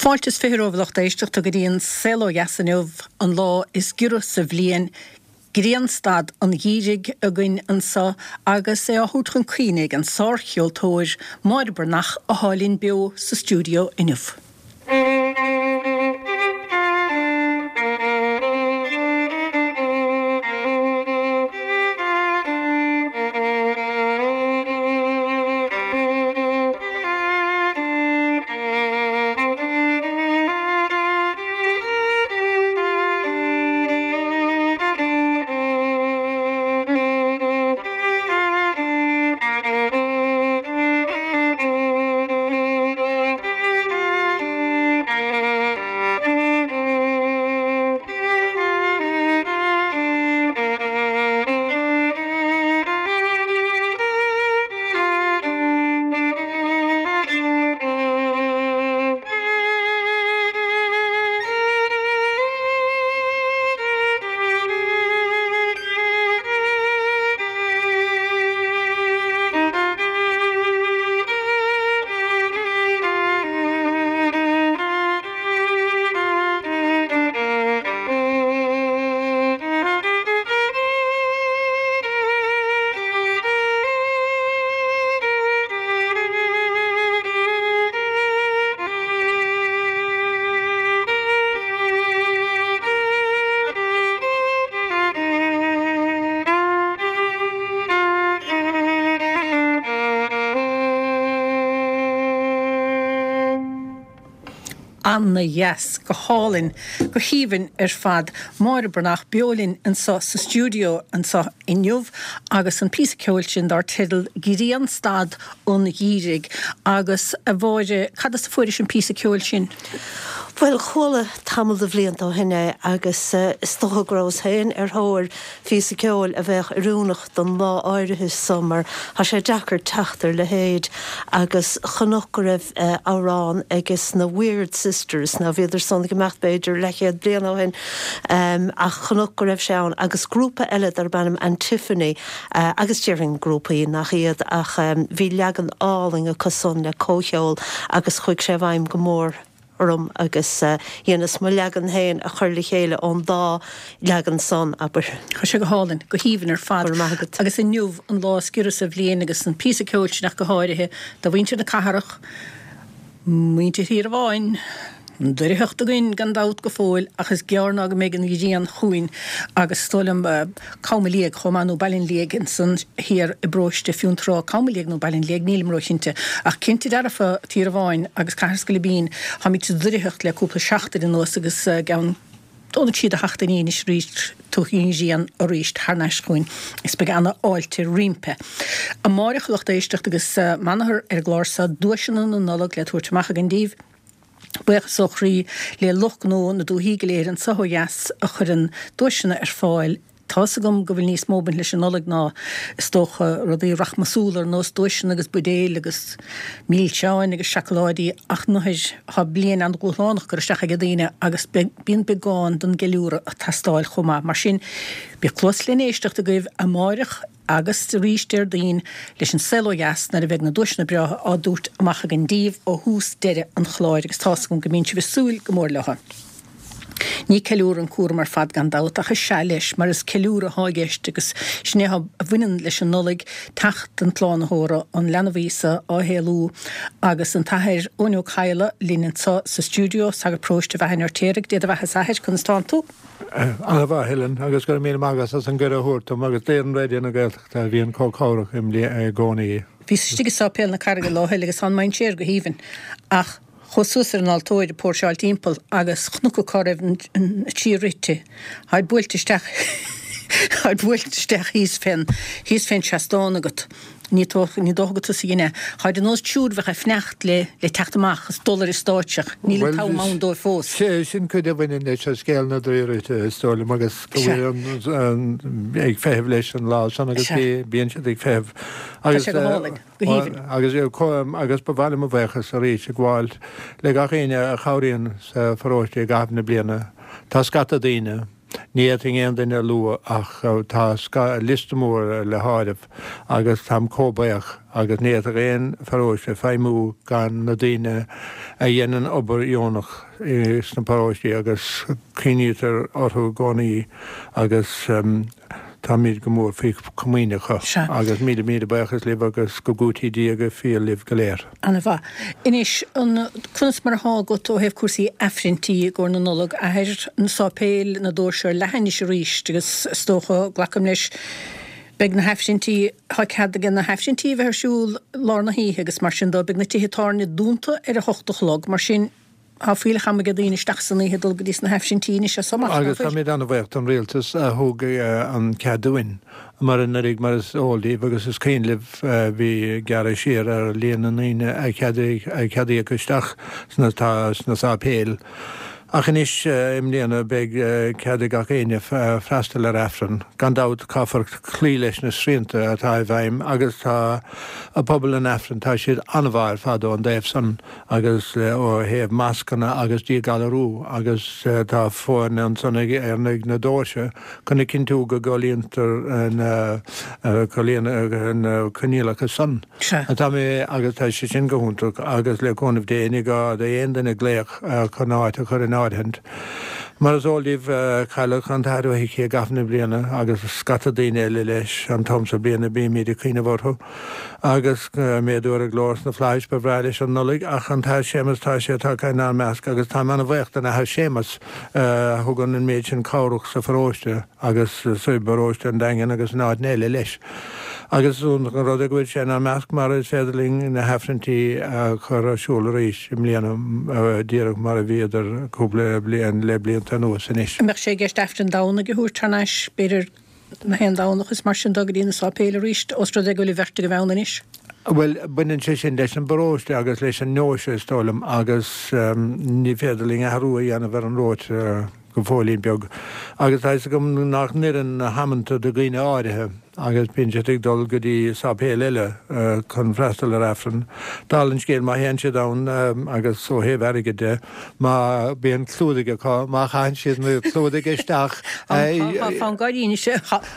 Fáilte is 20 romhaibh a lucht éisteachta go dtí an Saol Ó Dheas inniu, an lá is giorra sa bhliain, grianstad an gheimhridh againn anseo agus é á thabhairt chun cuimhne ag an sárcheoltóir Máire Breathnach athá linn beo sa stiúideo inniu. Ana-dheas, go hálainn, go haoibhinn ar fad. Máire Breathnach beo linn anseo sa stiúideo anseo inniu agus an píosa ceoil sin dar teideal Grianstad an Gheimhridh. Agus, a Mháire, cad as a fuairis an píosa ceoil sin? Bhuel, chuala tamall de bhlianta ó shin é agus is dócha go rabhas féin ar thóir phíosa ceoil a bheadh oiriúnach don lá áirithe so mar tá sé deacair teacht ar leithéid agus chonac go raibh amhrán ages na Weird Sisters, now bhíodar san ag imeacht b'fhéidir leathchéad bliain ó shin ach chonac go raibh sé ann agus grúpa eile darb ainm Antiphony agus déarfainn grúpaí nach iad ach bhí leagan álainn acu san le comhcheol agus chuaigh sé i bhfeidhm go mór orm agus dheineas mo leagan féin a chur le chéile ón dá leagan san, abair. Tá sé go hálainn, go haoibhinn ar fad. Go raibh maith agat. Agus inniu an lá is giorra sa bhliain agus an píosa ceoil sin ach go háirithe do mhuintir na cathrach, muintir Thír an Bháin, an doircheacht againn gan dabht go fóill ach is gearr ná go mbeidh an ghrian chugainn agus is dóigh liom Cam an Liaigh chomh maith nó Baile an Liaigh ansan thiar i bparóiste Fionntrá, Cam an Liaigh nó Baile an Liaigh nílim róchinnte ach cinnte dearfa Tír an Bháin agus Cathair Scoilbín táimid sa doircheacht le cúpla seachtain anuas agus i gceann dó nó trí de sheachtainí anois arís tiocfaidh an ghrian arís thar n-ais chugainn is beidh ana fháilte roimpi. Amáireach a lucht éisteachta agus m'athair ar an gclár seo duaiseanna na Nollag le tabhairt amach againn díbh. Buíochas ó chroí le lucht gnó na dúthaí go léir anso ó dheas a chuireann duaiseanna ar fáil. Tá's agam go bhfuil níos mó ag baint leis an Nollaig ná, is dócha, rudaí rachmasúla ar nós duaiseanna agus buidéil agus milseáin agus seacláidí ach nuair thá bliain an-dhúshlánach curtha isteach ag daoine agus bíonn beagán den gceiliúradh ag teastáil chomh maith. Mar sin, bíodh cluas len éisteacht agaibh amáireach agus arís Déardaoin leis an Saol Ó Dheas nuair a bheidh na duaiseanna breátha á dtabhairt amach againn díbh ó thús deireadh an chláir agus tá's agam go mbíonn sibh ag súil go mór leo. Ní ceiliúradh an cúram ar fad gan dabht ach is ea leis mar is ceiliúradh athá i gceist agus sin é a bhaineann leis an Nollaig, teacht an tSlánaitheora, an leanbh Íosa á shaolú agus an tAthair Eoin Ó Cadhla linn anseo sa stiúideo, sagart paróiste Bheatha an Fheirtéaraigh. Dé do bheatha a Athair, conas tánn tú? An-mhaith, Helen, agus go raibh míle maith agat as an gcuireadh a thabhairt dom agus d'fhoireann Raidió na Gaeltachta a bhíonn chomh cabhrach i gcónaí. Bhíos istigh i Sáipéal na Carraige lá eile agus tá an mainséar go haoibhinn ach chuas suas ar an altóir ag póirseáil timpeall agus chonac cá raibh an tsíor rite. Tháid buailte isteach tháid buailte isteach thíos fén thíos fén seastán agat. Ní dócha ní dócha gur tusa a dhein é. Tháid ar nós triúr a bheadh ag fanacht le le teacht amach is dul ar an stáitse ach níl an t-am ann dóibh fós. Sé sin cuid a bhaineann leis an scéal na dTrí Rite is dóigh liom agus go bhfuil an ag feitheamh leis an lá san agus bíonn siad ag feitheamh Tá sé go hálainn, go haoibhinn. Agus agus ba mhaith liom mo bhuíochas arís a ghabháil le gach éinne a chabhraíonn sa pharóiste i gcaitheamh na bliana. Tá scata daoine. Ní fhéadfainn aon duine a lua ach tá liosta mór le háireamh agus táim chomh buíoch agus ní fhéadfadh aon pharóiste feidhmiú gan na daoine a dhéanann obair dheonach sna paróistí agus cuimhnítear orthu i gcónaí agus táimid go mór faoi chomaoin acu agus míle míle buíochas libh agus go gcúití Dia go fial libh go léir. Ana mhaith. Anois, an, conas mar athá agat ó thaobh cúrsaí Aifrinntí i gcomhair na Nollag, a Athair? Na sáipéil, na doirse ar leathadh anois arís agus is dócha, glacaim leis, beidh na hAifrinntí, tá cead aige na hAifrinntí a bheith ar siúl lár na hoíche agus mar sin dó, beidh na tithe tábhairne dúnta ar a hocht a chlog, mar sin, Tá fuílleach ama ag daoine isteach san oíche dul go dtí sna hAifrinntí anois as so amach, nach Agus bhfuil? táimid an-bhuíoch don Rialtas a thug an cead dúinn, mar anuraidh, mar is eol daoibh agus is cuimhin libh, bhí gearradh siar ar líon na ndaoine a ceadaíodh isteach sna sna sáipéil. Ach anois, i mbliana, beidh cead ag gach éinne freastal ar Aifreann. Gan dabht, caithfear cloí leis na srianta atá i bhfeidhm agus tá pobal an Aifrinn, tá siad an-mhaith ar fad ón dtaobh san. agus ó thaobh mascanna agus díghalarú agus tá foirne ansan ag ar na doirse chun a chinntiú go gcomhlíontar na na coinníollacha san. Tá mé agus tá sé sin go hiontach agus le cúnamh Dé ní gá d'aon duine glaoch chun áit a chur in áirithint. Mar is eol daoibh cailleadh an tAthair Ó hIcí i gcaitheamh na bliana agus scata daoine eile leis an t-am so bliana bímid ag cuimhneamh orthu. Agus méadú ar a ghlór sna flaithis, ba bhreá leis an Nollaig, ach an tAthair Séamus, tá sé tagtha inár measc agus táim an-bhuíoch den Athair Séamus a thugann an méid sin cabhrach sa pharóiste agus sa bparóiste an Daingin agus in áiteanna eile leis. Agus is iontach an rud é go bhfuil sé inár measc mar is féidir linn na hAifrinntí a chur ar siúl arís i mbliana díreach mar a bhíodar cúpla bliain le blianta anuas anois. An mbeadh sé i gceist Aifreann Domhnaigh a thabhairt thar n-ais, b'fhéidir? Na haon Domhnach is mar sin dó go dtí na sáipéil arís, ós rud é go bhfuil an bheirt agaibh ann anois. Bhuel, baineann sé sin leis an bparóiste agus leis an ndeoise, is dóigh liom, agus ní féidir linn athrú a dhéanamh ar an róta go fóillín beag. Agus tá fhios agam nach n-oireann na hamanta do dhaoine áirithe agus bíonn siad ag dul go dtí sáipéal eile chun freastal ar Aifreann. Dála an scéil, má théann siad ann agus ó thaobh airgid de, Má bíonn clúdaigh acu, má chaitheann siad na clúdaigh isteach. Tá fonn gáirí anois.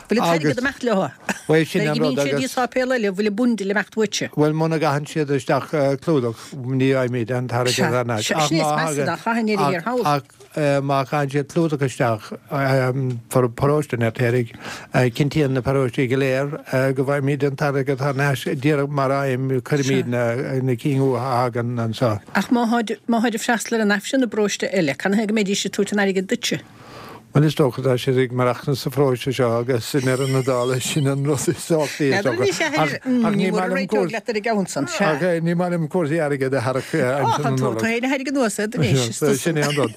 Bhfuil an t-airgead ag imeacht leo? Bhuel, sin an rud agus. Nuair a imíonn siad i sáipéal eile, bhfuil an bundle ag imeacht uaitse? Bhuel, muna gcaitheann siad isteach clúdach, ní fhaighimid an t-airgead thar n-ais. Ach má thagann. Ach má chaitheann siad clúdach isteach, paróiste an Fheirtéaraigh, cinntíonn na paróistí go léir go bhfaighimid an t-airgead thar n-ais díreach mar aidhm, cuirimid na cinn uathu a thagann anseo. Ach má tháid, má tháid ag freastal ar an Aifreann i bparóiste eile, canathaobh go mbeidís ag tabhairt an airgid duitse? Bhuel, is dócha, tá siad ag maireachtaint sa pharóiste seo agus i ndeireadh na dála sin an rud is tábhachtaí is dócha. Ach ní maith liom cúrsaí, leat ar an gceann san, sea. Ach ní maith liom cúrsaí airgid a tharrac aimsir na Nollag. Tá féin a thairg anuas iad anois, is tusa. Sin é an rud.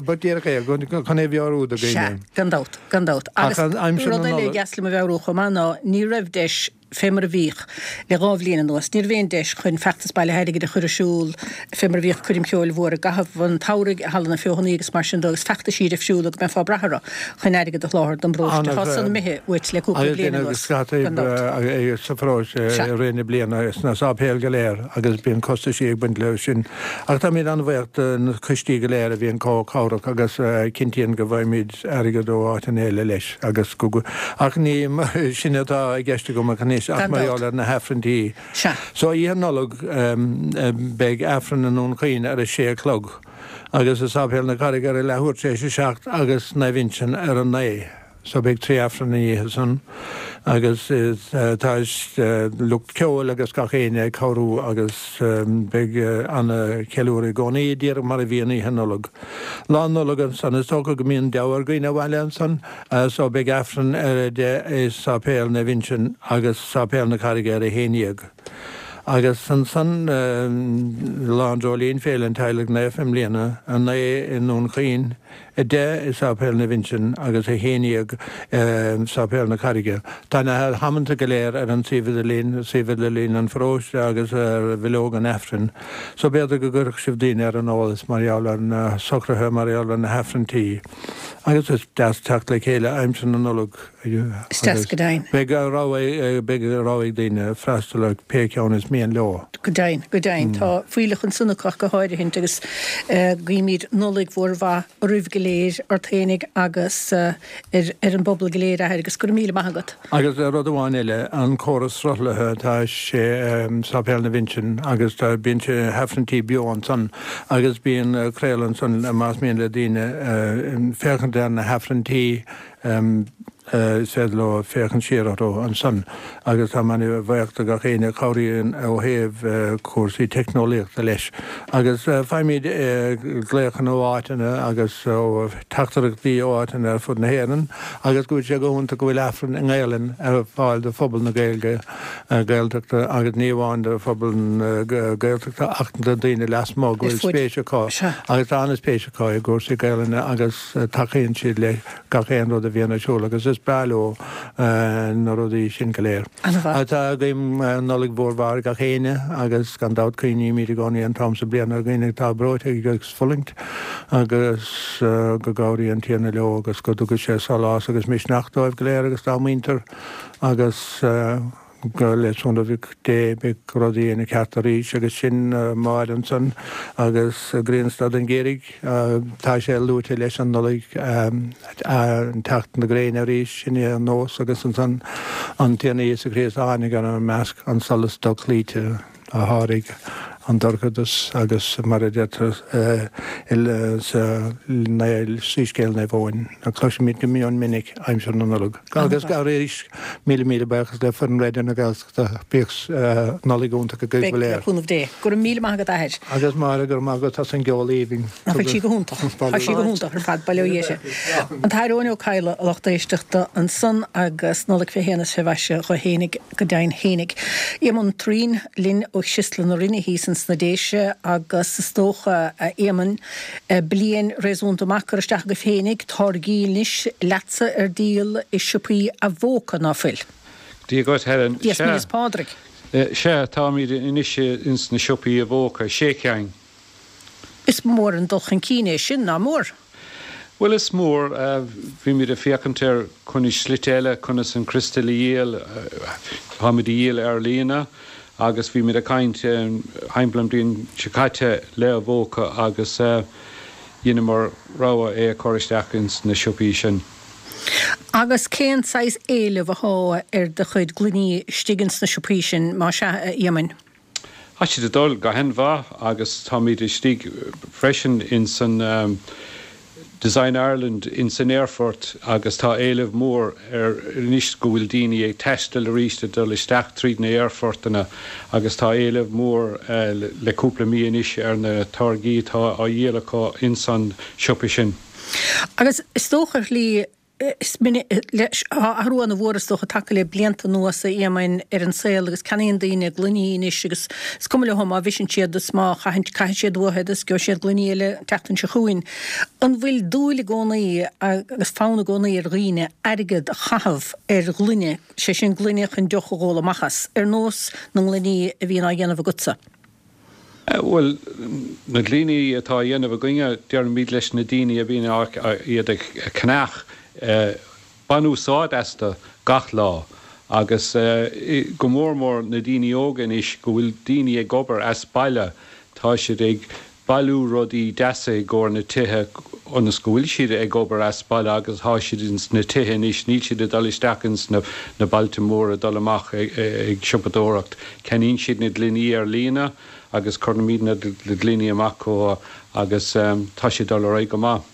Ba díreach é, chun é a mheabhrú do dhaoine. Sea, gan dabht, gan dabht. Agus rud eile a dheas liom a mheabhrú chomh maith ná ní raibh deis fé mar a bhíodh le 2 bhliain anuas. Ní raibh aon deis chun feachtas bailithe airgid a chur ar siúl fé mar a bhíodh coirm cheoil mhór i gcaitheamh an tsamhraidh i Halla na Feothanaí agus mar sin de agus feachtaisí difriúla go mbeifeá ag brath orthu chun airgead a sholáthar don bparóiste. Tá san imithe uait le cúpla bliain anuas, gan dabht. sa pharóiste i rith na bliana sna sáipéil go léir agus bíonn costaisí ag baint leo sin. Ach táimid an-bhuíoch de na coistí go léir a bhíonn chomh cabhrach agus a chinntíonn go bhfaighimid airgead ó áiteanna eile leis agus go, ach ní sin atá i gceist agam ach anois ach mar gheall ar na hAifrinntí. So Oíche Nollag beidh Aifreann i nDún Chaoin ar a sé a chlog agus i Sáipéal na Carraige ar a leathuair tar éis a 7 agus Naomh Uinseann ar a 9. So beidh 3 Aifreann an oíche san agus tá lucht ceoil agus gach éinne ag cabhrú agus beidh ana cheiliúradh i gcónaí, díreach mar a bhíonn Oíche Nollag. Lá Nollag ansan is dócha go mbíonn deabhadh ar dhaoine abhaile ansan so beidh Aifreann ar a 10 i Sáipéal Naomh Uinseann agus Sáipéal na Carraige ar a 11. Agus ansan Lá an Dreoilín, Féile an Teaghlaigh Naofa i mbliana, 9 i nDún Chaoin, 10 i Sáipéal Naomh Uinseann agus 11 i Sáipéal na Carraige. Tá na hamanta go léir ar an suíomh idirlín, suíomh idirlín an pharóiste agus ar bhileog an Aifrinn. So b'fhéidir go gcuirfeadh sibh daoine ar an eolas mar gheall ar na socruithe mar gheall ar na hAifrinntí. Agus is deas teacht le chéile aimsir na Nollag. Is deas go deimhin. Beidh rogha beidh rogha ag daoine freastal ar pé ceann is mian leo. Go deimhin, go deimhin. Tá fuílleach ansan acu ach go háirithint agus guímid Nollaig mhór mhaith oraibh go léir, ort fhéinig agus ar an bpobal go léir, a Athair, agus go raibh míle maith agat. Agus rud amháin eile, an córas sruthlaithe, tá sé i Sáipéal na bhUinseann agus tá, bíonn sé Aifrinntí beo ansan agus bíonn craoladh ansan más mian le daoine féachaint ar na hAifrinntí is féidir leo féachaint siar orthu ansan agus tá mé an-bhuíoch do gach éinne a chabhraíonn ó thaobh cúrsaí teicneolaíochta leis agus faighimid glaochanna ó áiteanna agus ó teachtaireachtaí ó áiteanna ar fud na hÉireann. agus go bhfuil sé go hiontach go bhfuil Aifreann i nGaelainn ar fáil do phobal na Gaeilge, Gaeltachta agus ní amháin do phobal na Gaeltachta ach do daoine lasmuigh go bhfuil spéis acu agus tá an-spéis acu i gcúrsaí Gaelainne agus tacaíonn siad le gach aon rud a bhíonn ar siúl agus is breá leo na rudaí sin go léir. Tá guím Nollaig mhór mhaith ar gach éinne agus gan dabht cuimhnímid i gcónaí an t-am sa bliain ar dhaoine atá breoite agus fulaingt agus go gcabhraí an Tiarna leo agus go dtuga sé sólás agus misneach dóibh go léir agus dá muintir agus go le cúnamh Dé beidh rudaí ina ceart arís agus sin Máire ansan agus Grianstad an Gheimhridh tá sé luaite leis an Nollaig an teacht na gréine arís sin é an nós agus ansan an Tiarna Íosa Críost a tháinig inár measc an solas dochloíte. a sháraigh an dorchadas agus mar a deirtear sa Soiscéal Naomh Eoin, a cloisimid go mion minic aimsir na Nollag. Agus arís, míle míle buíochas le foireann Raidió na Gaeltachta. Bíodh Nollaig iontach agaibh go léir. Beidh, le cúnamh Dé. Go raibh míle maith agat, a Athair. Agus Máire, go raibh maith agat as an gceol aoibhinn. Nach bhfuil sí go hiontach? Tá sí go hiontach ar fad, bail ó Dhia uirthi. An tAthair Eoin Ó Cadhla, a lucht éisteachta, ansan agus Nollaig fé shéan is fé mhaise dho fhéinig. Go deimhin fhéinig. Éamonn Thureen linn ó Chriostal na Rinne thíos ins na Déise agus is dócha, a Éamoinn, bliain réasúnta maith curtha isteach agaibh fhéinig, táirgí anois leatsa ar díol i siopaí Avoca, ná fuil? Dia dhuit, Helen. Dia 's Míle is Pádraig. Sea, táimid anois ins na siopaí Avoca, sé cheann. Is mór an dul chun cinn é sin, ná mór? Bhuel, is mór. Bhímid ag féachaint ar conas slite eile conas an criostal a dhíol. Táimid a dhíol ar líne agus bhímid ag caint thimpeall an bhliain seo caite le Avoca agus dheineamar rogha é a chur isteach ins na siopaí sin. Agus cén saghas éileamh athá ar do chuid gloiní istigh ins na siopaí sin, más ea, a Éamoinn? Tá siad ag dul go han-mhaith agus táimid istigh freisin ins an Design Ireland ins an aerfort agus tá éileamh mór ar anois go bhfuil daoine ag taisteal arís ag dul isteach tríd na aerfortanna agus tá éileamh mór le cúpla mí anois ar na táirgí atá á dhíol acu ins an siopa sin. Agus is dócha ar shlí Is minic, tá athrú ana-mhór is dócha tagtha le blianta anuas, a Éamoinn, ar an saol agus ceannaíonn daoine gloiní anois agus is cuma leo má bhriseann siad is má chaitheann, caithfidh siad uathu iad is gheobhaidh siad gloiní eile an tseachtain seo chugainn. An bhfuil dúil i gcónaí agus fonn i gcónaí ar dhaoine airgead a chaitheamh ar ghloine, sé sin gloine chun deoch a dh'ól amach as, ar nós na ngloiní a bhíonn á dhéanamh agatsa? Bhuel, na gloiní atá á dhéanamh againne, deirimid leis na daoine a bhíonn iad ag ceannach, bain úsáid astu gach lá agus go mór mór na daoine óga anois go bhfuil daoine ag obair as baile, tá siad ag bailiú rudaí deasa i gcomhair na tithe ionas go bhfuil siad ag obair as baile agus tá siad ins na tithe anois, níl siad ag dul isteach ins na bailte móra ag dul amach ag siopadóireacht. Ceannaíonn siad na gloiní ar líne agus cuirimid na gloiní amach chucu agus tá sé ag dul ar aghaidh go maith.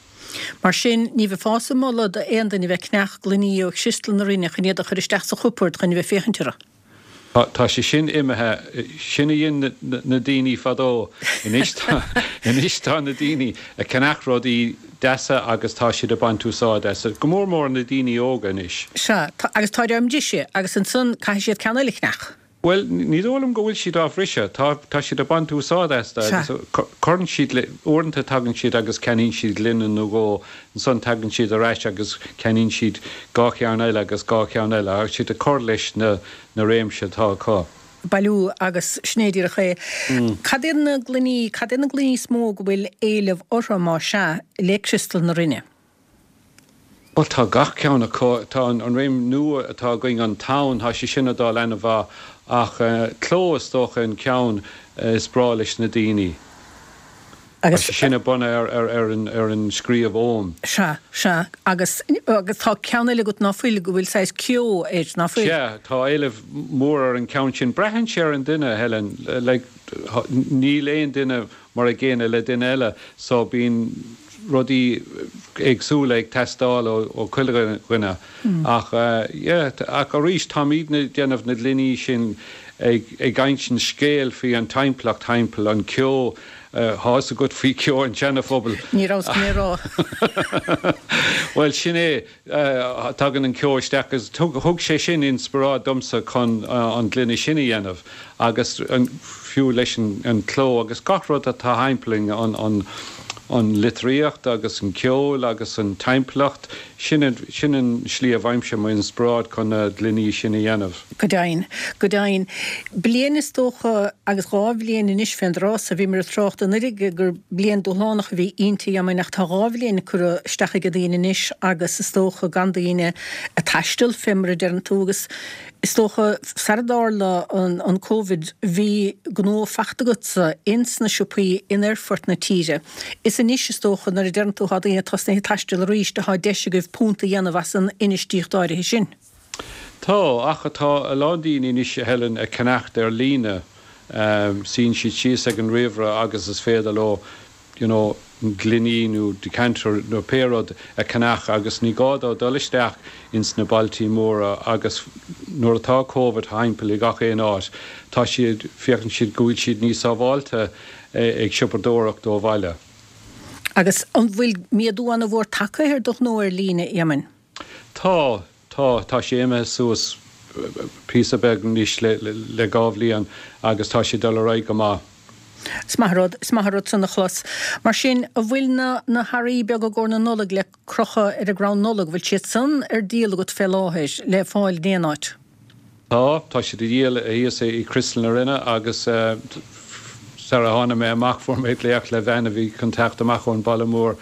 Mar sin, ní bheifeása ag moladh d'aon duine bheith ag ceannach gloiní ó Chriostal na Rinne chun iad a chur isteach sa chupard chun a bheith féachaint orthu. Tá sé sin imithe. Sin a dhein na daoine fadó. Anois tá, anois tá na daoine ag ceannach rudaí deasa agus tá siad ag baint úsáid as. Go mór mór na daoine óga anois. Sea, tá, agus táid á mbriseadh agus ansan caithfidh siad ceann eile a cheannach. Bhuel, ní dóigh liom go bhfuil siad á bhriseadh. Tá, tá siad ag baint úsáid astu agus cuireann siad le, uaireanta tagann siad agus ceannaíonn siad gloine nó dhó, ansan tagann siad ar ais agus ceannaíonn siad dhá cheann eile agus dhá cheann eile agus siad ag cur leis na, na réimse atá acu. Bailiú agus sin é díreach é. Cad iad na gloiní, cad iad na gloiní is mó go bhfuil éileamh orthu, más ea, le Criostal na Rinne? Bhuel, tá gach ceann acu. Tá an réim nua atá againn, An Tonn, tá sé sin ag dul ana-mhaith ach Cló is dócha an ceann is breá leis na daoine. Tá Agus. sé sin bunaithe ar an scríobh Ogham. Sea, sea. Agus, agus tá ceann eile agat ná fuil, go bhfuil saghas ceo air, ná fuil? Sea, tá éileamh mór ar an ceann sin. Braitheann sé ar an duine, Helen. Like, níl aon duine mar a gcéanna le duine eile so bíonn rudaí éagsúla ag teastáil ó chuile dhuine. Ach yeah, ach arís táimidne ag déanamh na gloiní sin ag ag insint scéal faoi an timpeallacht thimpeall, an ceo, tá fhios agat faoi ceo an tSeana-Phobail. Ní rabhas chun é a rá. Bhuel sin é. Tagann an ceo isteach agus thug sé sin inspioráid domsa chun an gloine sin a dhéanamh agus fiú leis an cló agus gach rud atá thimpeall an an litríocht agus an ceol agus an timpeallacht, sin an sin an slí a bhfaighimse mo inspioráid chun na gloiní sin a dhéanamh. Go deimhin, go deimhin. Bliain is dócha, agus 2 bhliain anois fén dtráth so, bhíomar ag trácht anuraidh gur bliain dúshlánach a bhí inti, Éamoinn, ach tá 2 bhliain curtha isteach ag daoine anois agus is dócha gan daoine ag taisteal, fé mar a deireann tú, agus is dócha sara dtarla an Covid bhí gnó fachta agatsa ins na siopaí in aerfoirt na tíre. Is anois is dócha nuair a deireann tú tá daoine tosnaithe ag taisteal arís atá deis agaibh punt a dhéanamh as an infheistíocht áirithe sin. Tá, ach tá a lán daoine anois, a Helen, ag ceannacht ar líne. Suíonn siad síos ag an ríomhaire agus is féidir leo, you know, gloiní nó decanter nó pé rud a cheannach agus ní gá dó dul isteach ins na bailtí móra agus nuair atá Covid thimpeall i gach aon áit, tá siad, féachann siad go bhfuil siad níos sábháilte ag siopadóireacht ó bhaile. Agus an bhfuil méadú ana-mhór tagtha ar do ghnó ar líne, Éamoinn? Tá, tá, tá sé imithe suas píosa beag anois le 2 bhliain agus tá sé ag dul ar aghaidh go maith. Is maith an rud, is maith an rud san a chlos. Mar sin, an bhfuil na, na hearraí beaga i gcomhair na Nollag le crochadh ar an gcrann Nollag, bhfuil siad san ar díol agat fé láthair, le fáil in aon áit? Tá, tá siad á dhíol thíos i Criostal na Rinne agus sara tháinig mé amach fuair mé glaoch le bhean a bhí chun teacht amach ón baile mór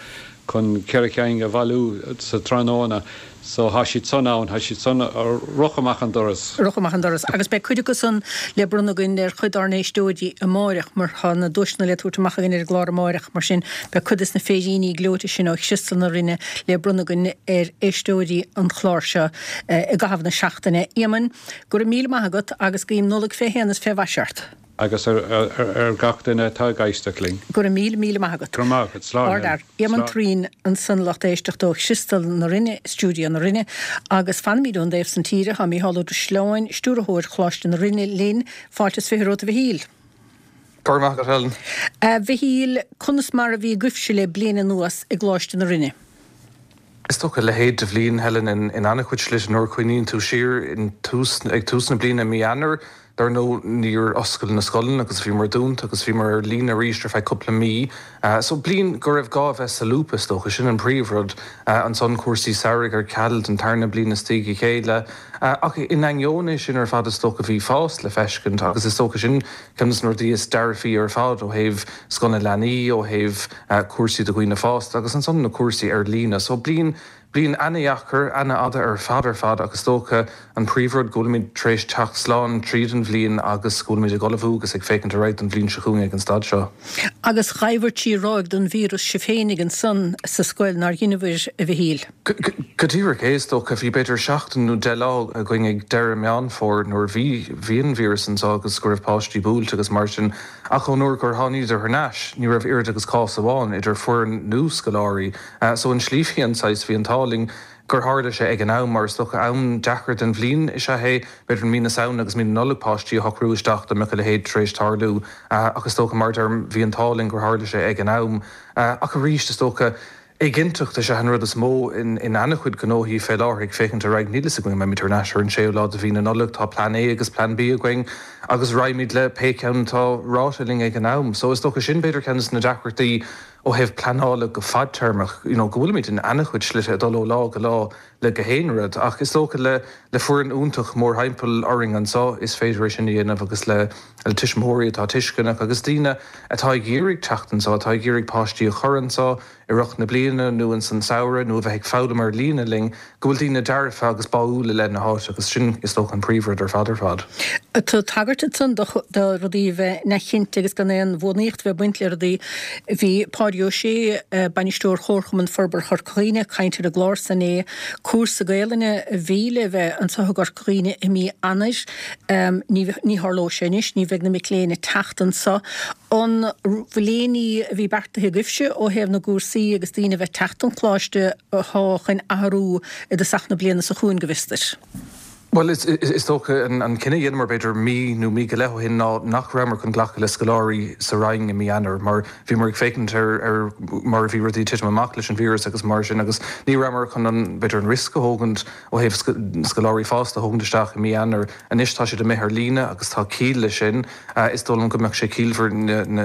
chun cheithre chinn a bhailiú sa tráthnóna so thá siad san ann, thá siad san ag rith amach an doras. Rith amach an doras. Agus beidh cuid acu san le bronnadh againn ar chuid dár n-éisteoirí amáireach mar tá na duaiseanna le tabhairt amach againn ar an gclár amáireach mar sin beidh cuid des na féiríní gleoite sin ó Chriostal na Rinne le bronnadh againn ar éisteoirí an chláir seo. i gcaitheamh na seachtaine. Éamoinn, go raibh míle maith agat agus guím Nollaig fé shéan is fé mhaise ort. Agus ar gach duine atá ag éisteacht linn. Go raibh míle, míle maith agat. Go raibh maith agat. Slán. Ardfhear. Éamonn Thureen ansan lucht éisteachta ó Chriostal na Rinne, Stiúideo na Rinne. Agus fanaimid ón dtaobh san tíre, tá Mícheál Ó Drisleáin, Stiúrthóir Choláiste na Rinne linn. Fáilte is 20 romhat a Mhichíl. Go raibh maith agat, Helen. A Mhichíl, conas mar a bhí agaibhse le bliain anuas i gColáiste na Rinne? Is dócha a leithéid de bhliain, Helen, in an-chuid slite. Nuair a chuimhníonn tú siar in tús, ag tús na bliana i mí Eanáir, dar ndóigh, níor oscail na scoileanna agus bhíomar dúnta agus bhíomar ar líne arís ar feadh cúpla mí. So bliain go raibh gá a bheith solúbtha, is dócha, sin an príomhrud. Ansan cúrsaí samhraidh ar ceal don tarna bliain as a chéile. Ach in ainneoin é sin ar fad, is dócha, bhí fás le feiscint agus is dócha sin ceann de na rudaí is dearfaí ar fad ó thaobh Scoil na Leanaí, ó thaobh cúrsaí do dhaoine fásta agus ansan na cúrsaí ar líne. So bliain, bliain ana-dheacair, ana-fhada ar fad ar fad ach is dócha an príomhrud go bhfuilimid tar éis teacht slán tríd an bhliain agus go bhfuilimid ag ullmhú agus ag féachaint ar aghaidh don bhliain seo chugainn ag an staid seo. Agus ghabhair trí ráig den víreas sibh féinig ansan sa scoil, nár dheineabhair, a Mhichíl? Go díreach é, is dócha. Bhí b'fhéidir seachtain nó 10 lá againn ag deireadh Meán Fómhair nuair a bhí, bhí an víreas anseo agus go raibh páistí buailte agus mar sin. Ach ón uair gur tháiníodar thar n-ais, ní raibh oiread agus cás amháin idir foireann nó scoláirí. So an tslí bhí an saghas, bhí an t-ádh linn gur tharla sé ag an am, mar is dócha am deacair den bhliain is ea é, b'fhéidir mí na Samhna agus mí na Nollag páistí a shocrú isteach dá mbeadh a leithéid tar éis tarlú. Ach is dócha, mar a deirim, bhí an t-ádh linn gur tharla sé ag an am. Ach arís, is dócha, Éiginnteacht is ea an rud is mó in an-chuid gnóthaí fé láthair ag féachaint ar aghaidh. Níl fhios againn an mbeimid thar n-ais ar an séú lá de mhí na Nollag. Tá Plean A agus Plean B againn agus raghaimid le pé ceann atá ráite linn ag an am. So is dócha sin b'fhéidir ceann de na deacrachtaí. ó thaobh pleanála go fadtéarmach, you know go bhfuilimid in ana-chuid slite ag dul ó lá go lá le gach aon rud. Ach is dócha le le foireann iontach mórthimpeall orainn anseo is féidir é sin a dhéanamh agus le le tuismitheoirí atá tuisceanach agus daoine atá ag iarraidh teacht anseo, atá ag iarraidh páistí a chur anseo i rith na bliana nó ins an samhradh nó a bheith ag foghlaim ar líne linn, go bhfuil daoine dearfa agus báúil i leith na háite agus sin is dócha an príomhrud ar fad ar fad. Tá tagairt ansan do rudaí a bheith neamhchinnte agus gan aon bhuanaíocht a bheith ag baint le rudaí. Bhí Pádraig Ó Sé, Bainisteoir Chomharchumann Forbartha Chorca Dhuibhne, ag caint ar an gclár san inné. Cúrsa Gaelainne a bhí le bheith anseo i gCorca Dhuibhne i mí Eanáir. Ní tharlóidh sé anois, ní bheidh na mic léinn ag teacht anseo. An bhfuil aon ní a bhí beartaithe agaibhse ó thaobh na gcúrsaí agus daoine a bheith ag teacht don choláiste atá chun athrú i dtosach na bliana seo chugainn, go bhfios duit? Bhuel, is dócha an cinneadh a dheineamar b'fhéidir mí nó mí go leith ó shin ná nach rabhamar chun glacadh le scoláirí sa Rinn i mí Eanáir mar bhíomar ag féachaint ar mar a bhí rudaí ag titim amach leis an víreas agus mar sin agus ní rabhamar chun an, b'fhéidir an riosca a thógaint ó thaobh scoláirí fásta a thógaint isteach i mí Eanáir. Anois tá siad amuigh ar líne agus tá ciall leis sin. Is dóigh liom go mbeadh sé ciallmhar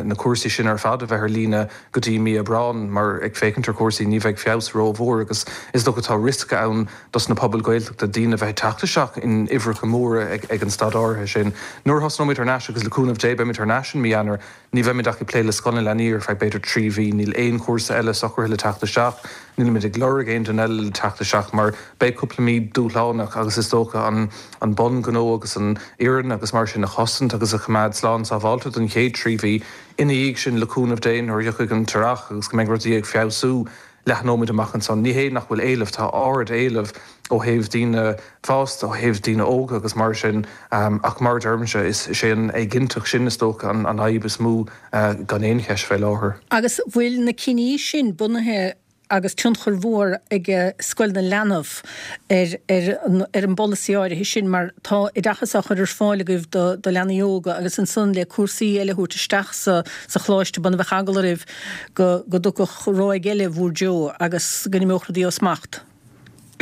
na cúrsaí sin ar fad a bheith ar líne go dtí mí Aibreán mar ag féachaint ar chúrsaí ní bheidh feabhas rómhór agus is dócha tá riosca ann dos na pobail Ghaeltachta daoine a bheith ag teacht isteach in uimhreacha móra ag an staid áirithe sin. Nuair a thosnóimid thar n-ais agus le cúnamh Dé beimid thar n-ais in mí Eanáir, ní bheimid ach ag plé le Scoil na Leanaí ar feadh b'fhéidir 3 mhí. Níl aon chúrsa eile socraithe le teacht isteach, nílimid ag lorg aon duine eile le teacht isteach mar beidh cúpla mí dúshlánach agus is dócha an an bun gnó agus an fhoireann agus mar sin a chosaint agus a choimeád slán sábháilte don chéad 3 mhí. Ina dhiaidh sin, le cúnamh Dé, nuair a thiocfaidh an t-earrach agus go mbeidh rudaí ag feabhsú, leathnóimid amach ansan. Ní hé nach bhfuil éileamh, tá ard-éileamh ó thaobh daoine fásta, ó thaobh daoine óga agus mar sin, ach mar a deirimse, is é an éiginnteacht sin is dócha an fhadhb is mó gan aon cheist fé láthair. Agus bhfuil na cinní sin bunaithe agus tionchar mhór ag Scoil na Leanbh ar ar an bpolasaí áirithe sin mar tá oideachas á chur ar fáil agaibh do do leanaí óga agus ansan le cúrsaí eile a thabhairt isteach sa sa choláiste b'ionann a bheadh eagla oraibh go go dtiocfadh ráig eile bhur dtreo agus go n-imeodh rudaí ó smacht.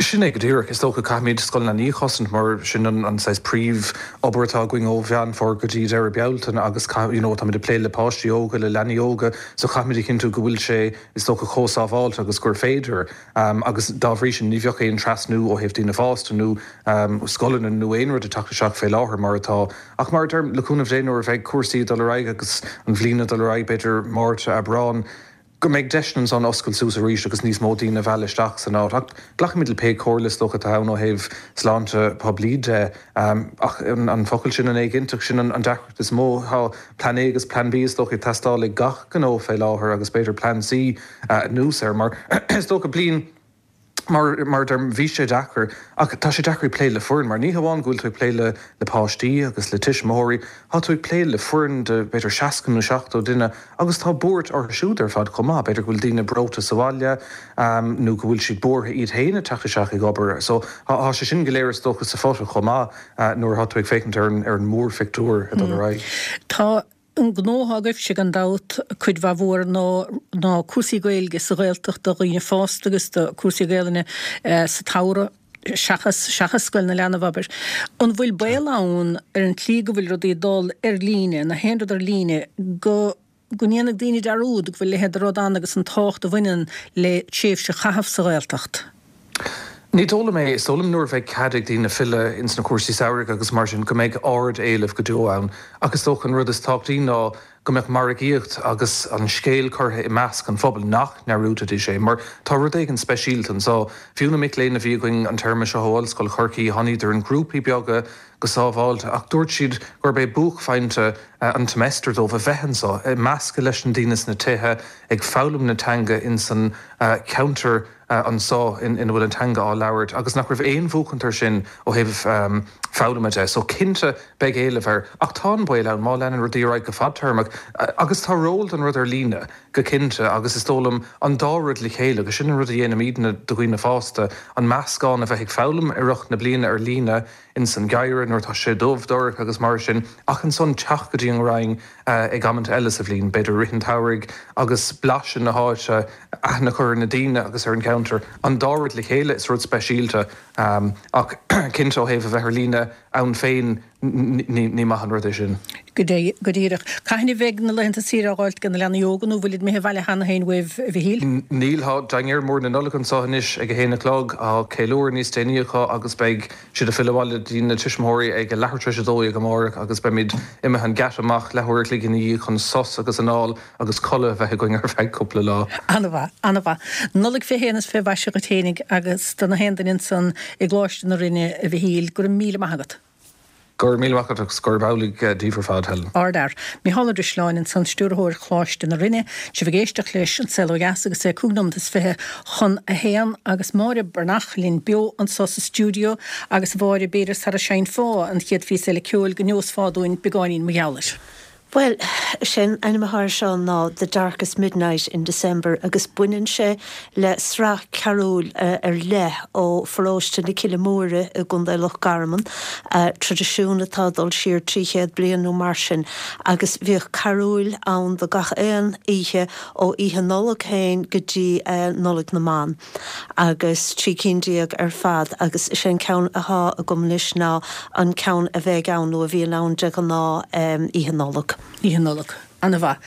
Sin é go díreach. Is dócha caithfimid Scoil na Leanaí a chosaint mar sin an saghas príomh obair atá againn ó Mheán Fómhair go dtí deireadh Bealtaine agus you know táimid ag plé le páistí óga, le leanaí óga so caithfimid a chinntiú go bhfuil sé is dócha chomh sábháilte agus gur féidir agus dá bhrí sin ní bheadh aon trasnú ó thaobh daoine fásta nó scoileanna nó aon rud ag teacht isteach fé láthair mar atá. Ach mar a deirim, le cúnamh Dé nuair a bheidh cúrsaí ag dul ar aghaidh agus an bhliain ag dul ar aghaidh b'fhéidir Márta, Aibreán, go mbeidh deiseanna ansan oscailt suas arís agus níos mó daoine a mhealladh isteach san áit. Ach glacfaimid le pé comhairle is dócha atá ann ó thaobh sláinte poiblí de. Ach an focal sin, an éiginnteacht, sin an deacracht is mó. Tá Plean A agus Plean B is dócha ag teastáil ag gach gnó fé láthair agus b'fhéidir Plean C anuas air mar is dócha bliain Mar mar a deirim, bhí sé deacair, ach tá sé deacair ag plé le foireann, mar ní hamháin go bhfuil tú ag plé le le páistí agus le tuismitheoirí, tá tú ag plé le foireann de b'fhéidir 60 nó 70 duine agus tá buairt orthu siúd ar fad chomh maith. B'fhéidir go bhfuil daoine breoite sa bhaile nó go bhfuil siad buartha iad féin ag teacht isteach ag obair. So tá sé sin go léir is dócha sa phota chomh maith nuair atá tú ag féachaint ar an ar an mórphictiúr ag dul ar aghaidh. Tá An gnó atá agaibhse gan dabht, cuid mhaith mhór ná ná cúrsaí Gaeilge sa Ghaeltacht do dhaoine fásta agus do cúrsaí Gaelainne sa tsamhradh seachas seachas Scoil na Leanbh, abair. An bhfuil baol ann ar an tslí go bhfuil rudaí ag dul ar líne, na haon rud ar líne, go go ndéanfaidh daoine dearúd go bhfuil a leithéid de rud ann agus an tábhacht a bhaineann le tréimhse a chaitheamh sa Ghaeltacht? Ní dóigh liom é. Is dóigh liom nuair a bheidh cead ag daoine filleadh ins na cúrsaí samhraidh agus mar sin go mbeidh ard-éileamh go deo ann. Ach is dócha an rud is tábhachtaí ná go mbeadh margaíocht agus an scéal curtha i measc an phobail, nach ndearúdfaidís é. Mar tá rud éigin speisialta anseo. Fiú na mic léinn a bhí againn an téarma seo ó Ollscoil Chorcaí, tháiníodar in grúpaí beaga go sábháilte ach dúirt siad gurb é buaicphointe an tsemester dóibh a bheith anseo, ag meascadh leis na daoine sna tithe, ag foghlaim na teanga ins an cheantar. anseo ina bhfuil an teanga á labhairt agus nach raibh aon bhuachaint air sin ó thaobh foghlama de. So cinnte beidh éileamh air ach tá an baol ann má leanann rudaí ar aghaidh go fadtéarmach agus tá ról don rud ar líne go cinnte agus is dóigh liom an dá rud le chéile agus sin an rud a dhéanaimidne do dhaoine fásta, an meascán a bheith ag foghlaim i rith na bliana ar líne ins an gheimhreadh nuair atá sé dubh dorcha agus mar sin ach ansan teacht go dtí an Rinn ag amanta eile sa bhliain, b'fhéidir i rith an tsamhraidh agus blaiseadh na háite, aithne a chur ar na daoine agus ar an gceantar. An dá rud le chéile, is rud speisialta. Ach cinnte ó thaobh a bheith ar líne. Ann féin, ní maith an rud é sin. Go díreach. Cathain a bheidh na laethanta saoire á dh'fháilt ag na leanaí óga nó bhfuilid imithe abhaile cheana féin uaibh, a Mhichíl? Níl. Tá dinnéar mór na Nollag anseo anois ag a haon a chlog. Tá ceiliúradh níos déanaí acu agus beidh siad ag filleadh abhaile dtí na tuismitheoirí ag a leathuair tar éis a 12 amárach agus beimid imithe an geata amach leathuair a chloig ina dhiaidh chun sos agus anáil agus codladh a bheith againn ar feadh cúpla lá. An-mhaith, an-mhaith. Nollaig fé shéan is fé mhaise dhuit fhéinig agus do na haon duine ansan i gColáiste na Rinne, a Mhichíl. Go raibh míle maith agat. Go raibh míle maith agat agus gurb amhlaidh daoibh ar fad, Helen. Ardfhear. Micheál Ó Drisleáin ansan, Stiúrthóir Choláiste na Rinne. Sibh ag éisteacht leis An Saol Ó Dheas agus é 25 nóimeat chun a haon agus Máire Breathnach linn beo anso sa stiúideo agus a Mháire, b'fhéidir sara seinnfeá an chéad phíosa eile ceoil go neosfá dúinn beagáinín mar gheall air. Bhuel, is é an ainm atá air seo ná The Darkest Midnight in December agus baineann sé le sraith carúil ar leith ó pharóiste na Cille Móire i gContae Loch Garman, traidisiún atá ag dul siar 300 bliain nó mar sin, agus bhíodh carúil ann do gach aon oíche ó Oíche Nollag féin go dtí Nollaig na mBan. agus 13 cinn ar fad agus is é an ceann atá agam anois ná an ceann a bheidh ann nó a bhíonn ann de ghnáth Oíche Nollag. Oíche Nollag. Ana-mhaith.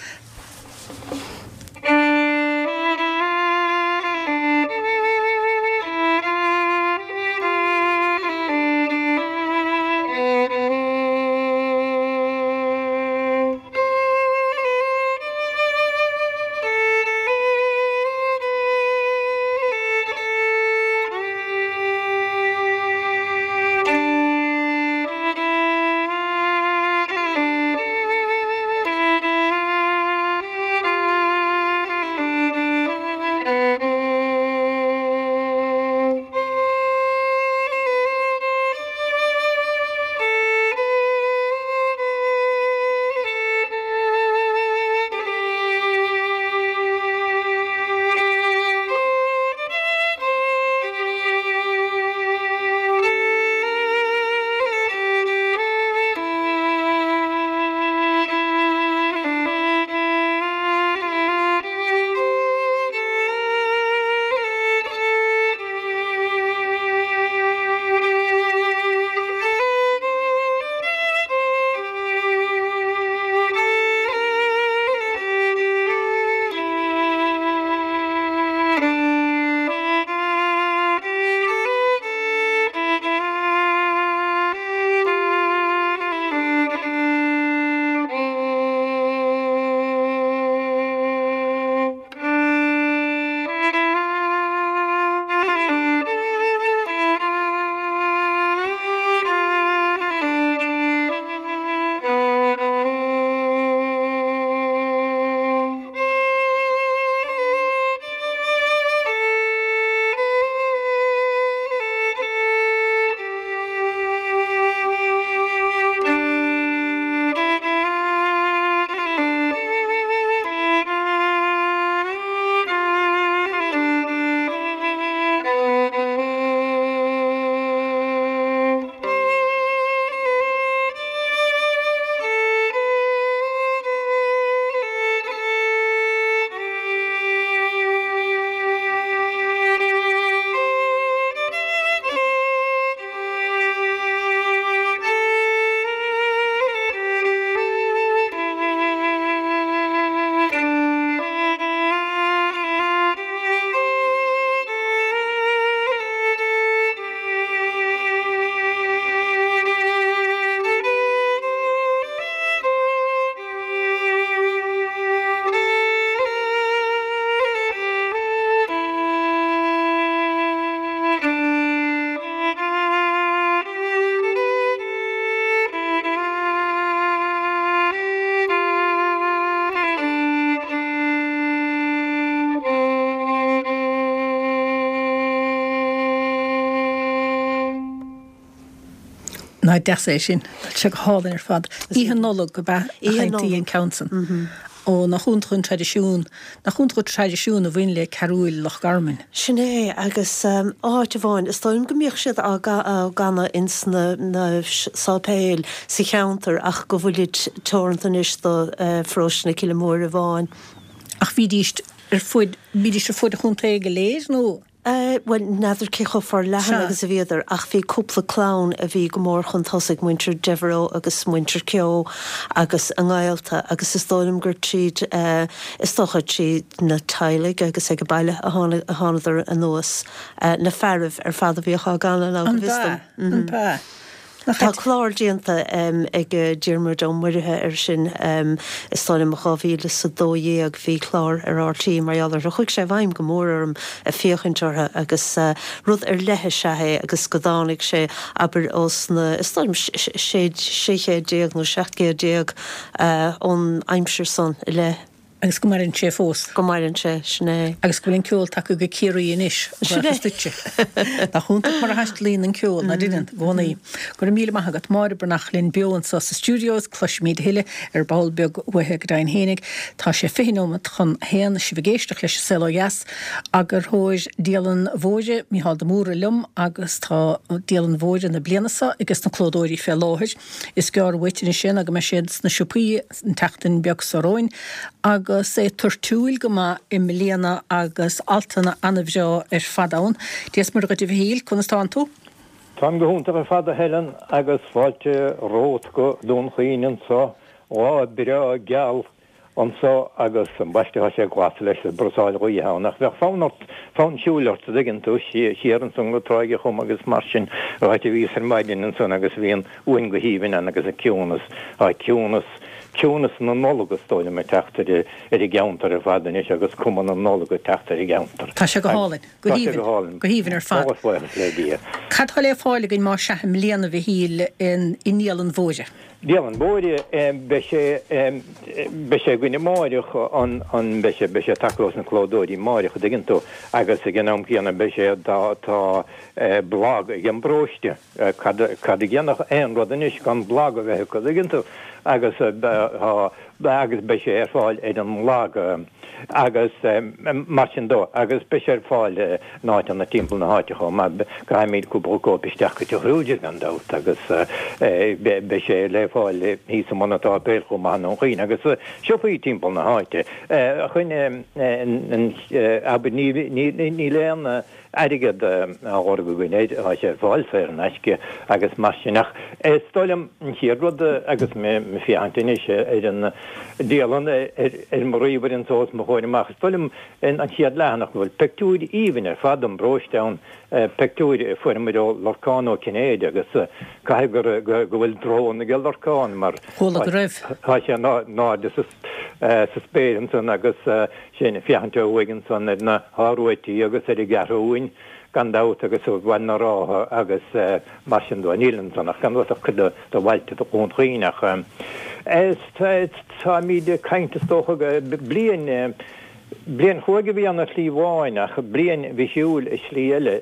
Nach deas é sin. Tá sé go hálainn ar fad. Oíche Nollag ab ea a sheinntí an ceann san. Ó, nach iontach an traidisiún, nach iontach an traidisiún a bhain le carúil Loch Garman. Sin é, agus áit amháin, is dóigh liom go mbíodh siad á gcanadh ins na sáipéil sa cheantar ach go bhfuilid teoranta anois do pharóiste na Cille Móire amháin. Ach bhídís ar fud, bhídís ar fud an chontae go léir nó? Bhuel, n'fheadar cé chomh forleathan agus a bhíodar, ach bhí cúpla clann a bhí go mór chun tosaigh, muintir Devereux agus muintir Keogh agus a ngaolta, agus is dóigh liom gur tríd, is dócha tríd na teaghlaigh agus ag baile a thánadar anuas, na fearaibh ar fad a bhíodh á gcanadh ná go bhfios dom. An b'ea? An b'ea? Tá clár déanta ag Diarmuid Ó Muirithe air sin, is dóigh liom 2012 bhí clár ar RTÉ mar gheall orthu. Chuaigh sé i bhfeidhm go mór orm ag féachaint orthu agus rud ar leith is ea é agus go dtáinig sé, abair, ós na, is dóigh liom, 16 chéad nó 17 céad ón aimsir san i leith. Agus go maireann sé fós. Go maireann sé, sin é. Agus go bhfuil an ceol tagtha go Ciarraí anois, Sin é. buíochas duitse. Nach iontach mar a thaistealaíonn an ceol, ná deineann, i gcónaí. Go raibh míle maith agat. Máire Breathnach linn beo anso sa stiúideo is cloisfimid a thuilleadh ar ball beag uaithi go deimhin fhéinig. Tá sé 20 nóimeat chun a haon, sibh ag éisteacht leis An Saol Ó Dheas. Eagarthóir Dialann Mhóire, Mícheál de Mórdha liom agus tá Dialann Mhóire na bliana seo ages na clódóirí fé láthair. Is gearr uait anois é ná go mbeidh siad sna siopaí an tseachtain beag seo romhainn agus é toirtiúil go maith i mbliana agus altanna ana-bhreá ar fad ann. Dia is Muire dhuit a Mhichíl, conas tánn tú? Táim go hiontach ar fad a Helen agus fáilte romhat go Dún Chaoin anso, lá breá geal anso agus ambaiste tá sé glas leis is brasáil ghaoithe ann ach bheadh fonn ort, fonn siúil ort a dtuigeann tú, siar ansan go Tráigh a' Chom agus mar sin, áit a bhíos ar maidin ansan agus bhí an uain go haoibhinn ann agus an ciúnas, tá ciúnas, ciúnas na Nollag is dóigh liom ag teacht ar ar an gceantar ar fad anois agus cuma na Nollag ag teacht ar an gceantar. Tá sé go hálainn, go haoibhinn, go haoibhinn ar fad. Tá buíochas le Dia. Cad tá le fáil againn más ea i mbliana a Mhichíl i nDialann Mhóire? Dialann Mhóire, beidh sé, beidh sé againn amáireach, an, an, beidh sé, beidh sé tagtha ós na clódóirí amáireach, a dtuigeann tú, agus ag an am céanna beidh sé, tá, tá blag ag an bparóiste, cad, cad a dhéanfadh aon rud anois gan blag a bheith acu, a dtuigeann tú, agus tá, agus beidh sé ar fáil ar an mblag. Agus mar sin dó, agus beidh sé ar fáil in áiteanna timpeall na háite chomh maith. Caithfimid cúpla cóip isteach go Teach Kruger gan dabht agus beidh sé le fáil thíos i mbun an tSáipéil chomh maith i nDún Chaoin agus siopaí timpeall na háite. Chun abair níl aon airgead á lorg againn air, tá sé ar fáil saor in aisce agus mar sin. Ach is dóigh liom an chéad rud agus mé ag féachaint anois ar an dialann ar mo ríomhaire anso os mo chomhair amach, is dóigh liom an chéad leathanach go bhfuil pictiúir aoibhinn ar fad don bparóiste ann, pictiúir a fuaireamar ó Lorcán Ó Cinnéide agus caithfidh go bhfuil drón aige Lorcán mar Chuala go raibh. tá sé in airde sa sa spéir ansan agus sinn ag féachaint ó thuaidh ansan ar na hIoruaití agus ar an gCeathrúin gan dabht agus ar Bhaile na Rátha agus mar sin dó. Níl ansan ach gan dabht ach cuid de bhailte Dhún Chaoin ach táimíd ag caint is dócha bliain Bliain chruaidh a bhí ann ar shlí amháin ach bliain bhisiúil i slí eile,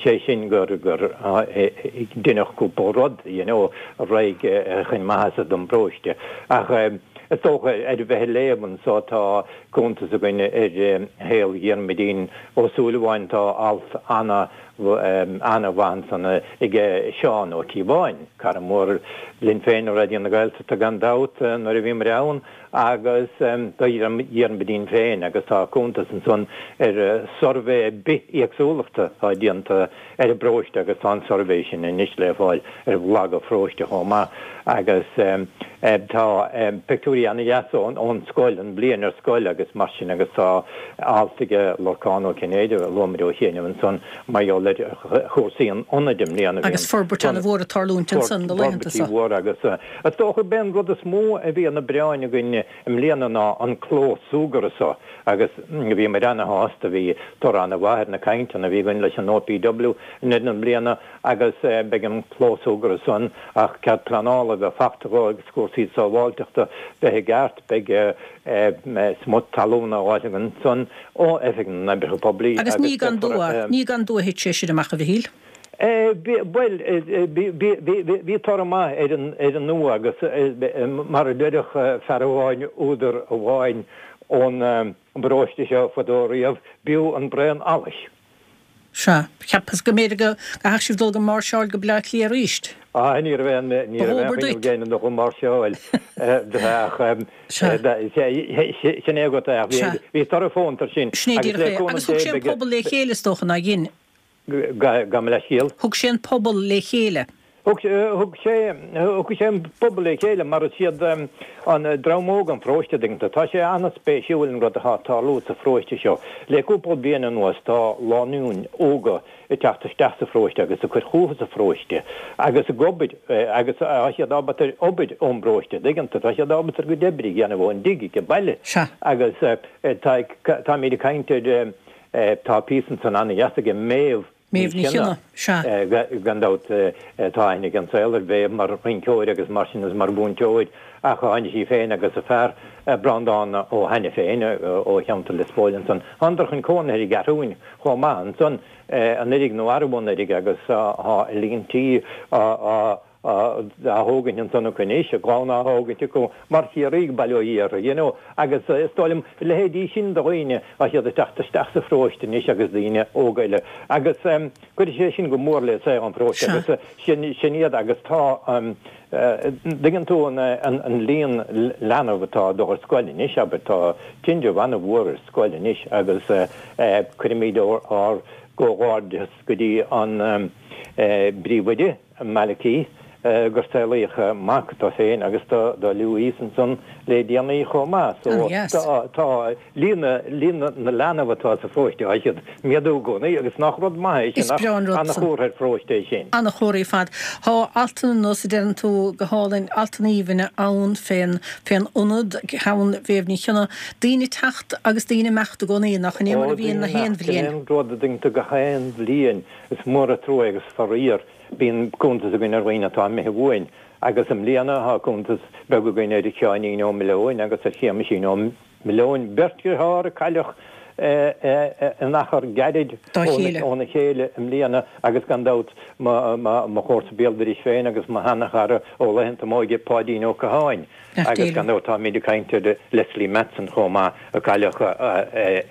sé sin gur deineadh cúpla rud, you know, ar aghaidh chun maitheasa don bparóiste. Ach is dócha, ar bheith ag léamh anso, tá cuntas againn ar shaol Dhiarmuidín Ó Súilleabháin, tá alt ana, ana-mhaith ansan aige Seán Ó Cíobháin, cara mór linn féin i Raidió na Gaeltachta gan dabht nuair a bhíomar ann, agus do Dhiarmuidín féin agus tá cuntas ansan ar suirbhé bithéagsúlachta atá déanta ar an bparóiste agus tá an suirbhé sin anois le fáil ar bhlag an pharóiste chomh maith agus tá pictiúirí ana-dheas ón scoil, an bhliain ar scoil agus mar sin agus tá alt aige Lorcán Ó Cinnéide a luamar ó chianaibh ansan mar gheall ar chúrsaí an ionaid i mbliana. Agus forbairt ana-mhór ag tarlúint ansan na laethanta seo. Forbairtí mhóra agus Is dócha gurb é an rud is mó a bhí ina bpráinn againn i mbliana ná an clós súgartha so agus bhíomar ana-shásta, bhí toradh ana-mhaith ar na cainteanna a bhí againn leis an OPW i ndeireadh na bliana agus beidh an clós súgartha san ach cead pleanála a bheith fachta dhó agus cúrsaí sábháilteachta bheith i gceart, beidh smut talún á fháil againn ansan ó Oifig na nOibreacha Poiblí Agus ní gan dua, ní gan dua a thit sé sin amach, a Mhichíl. Bhuel, bhí toradh maith ar an ndua agus mar a déarfadh fear amháin, údar amháin ón bparóiste seo fadó riamh, b'fhiú an braon allais. Sea. Cheapas go mb'fhéidir go gcaithfeadh sibh dul ag máirseáil go Baile Átha Cliath arís. Ah, ní raibh aon, ní raibh aon Ba dhóbair chuimhne duit. againn dul ag máirseáil. Ach Sea. sin é agat é, ach bhí, Sea. bhí toradh fónta air sin. Sin é Agus díreach le é. cúnamh Agus thug Dé sé an beidh, pobal le chéile is dócha, nár dhein? Gabh mo leithscéal. Thug sé an pobal le chéile. Thug sé, thug sé an pobal le chéile mar is iad an dream óg an pharóiste, an dtuigeann tú. Tá sé an-spéisiúil an rud atá ag tarlú sa pharóiste seo. Le cúpla bliain anuas tá lánúin óga ag teacht isteach sa pharóiste agus ag cur fúthu sa pharóiste agus ag obair agus tá siad ábalta obair ón bparóiste, an dtuigeann tú. Tá siad ábalta a gcuid oibre a dhéanamh ón dtigh ag baile agus tá, táimid ag caint ar Tá píosa ansan ana-dheas aige Méabh Ní Chionnaith, sea. Gan dabht tá aithne ag an saol ar Mhéabh mar rinceoir agus mar sin agus mar mhúinteoir ach tháinig sí féin agus a fear Breandán ó hAiniféin ó cheantar Lios Póil ansan. Thánadar chun cónaithe ar an gCeathrúin chomh maith ansan anuiridh nó arú anuiridh agus tá líon tí á á thógaint ansan acu anois, a gclann á thógaint acu mar Chiarraígh, bail ó Dhia orthu, you know, agus is dóigh liom, a leithéidí sin de dhaoine, tá siad ag teacht isteach sa pharóiste anois agus daoine óga eile agus cuirfidh sé sin go mór le saol an pharóiste agus sin, sin iad agus tá, dtuigeann tú an, an líon leanbh atá ag dul ar scoil anois, abair, tá tinreamh an-mhór ar scoil anois agus cuirimid ár gcomhghairdeas go dtí an bPríomhoide. Malachy, gur saolaíodh mac dó féin agus do Louise ansan le déanaí chomh maith. So tá, tá líon, líon na leanbh atá sa pharóiste, tá siad ag méadú i gcónaí agus nach rud maith é sin, Is breá an rud san. Ana-chomhartha ar pharóiste é sin. Ana-chomhartha ar fad. Tá altanna nós a deireann tú go hálainn, altanna aoibhinne ann fén, fén ionad, ceann Mhéabh Ní Chionnaith. Daoine ag teacht agus daoine ag imeacht i gcónaí, nach in é mar Ó, a bhíonn daoine na haon imeacht, sin bhliain. é an rud a dtuigeann tú gach aon bhliain. Is mór an trua agus faraor, bíonn cuntas againn ar dhaoine atá imithe uainn agus i mbliana tá cuntas beag againn ar Sheáinín Ó Mileoin agus ar Shéamaisín Ó Mileoin, beirt dheartháir a cailleadh in achar gairid óna chéile i mbliana agus gan dabht mo chomharsa béal dorais féin agus mo sheana-chara ó laethanta m'óige, Páidín Ó Catháin agus gan dabht táimid ag caint ar Leslie Matson chomh maith a cailleadh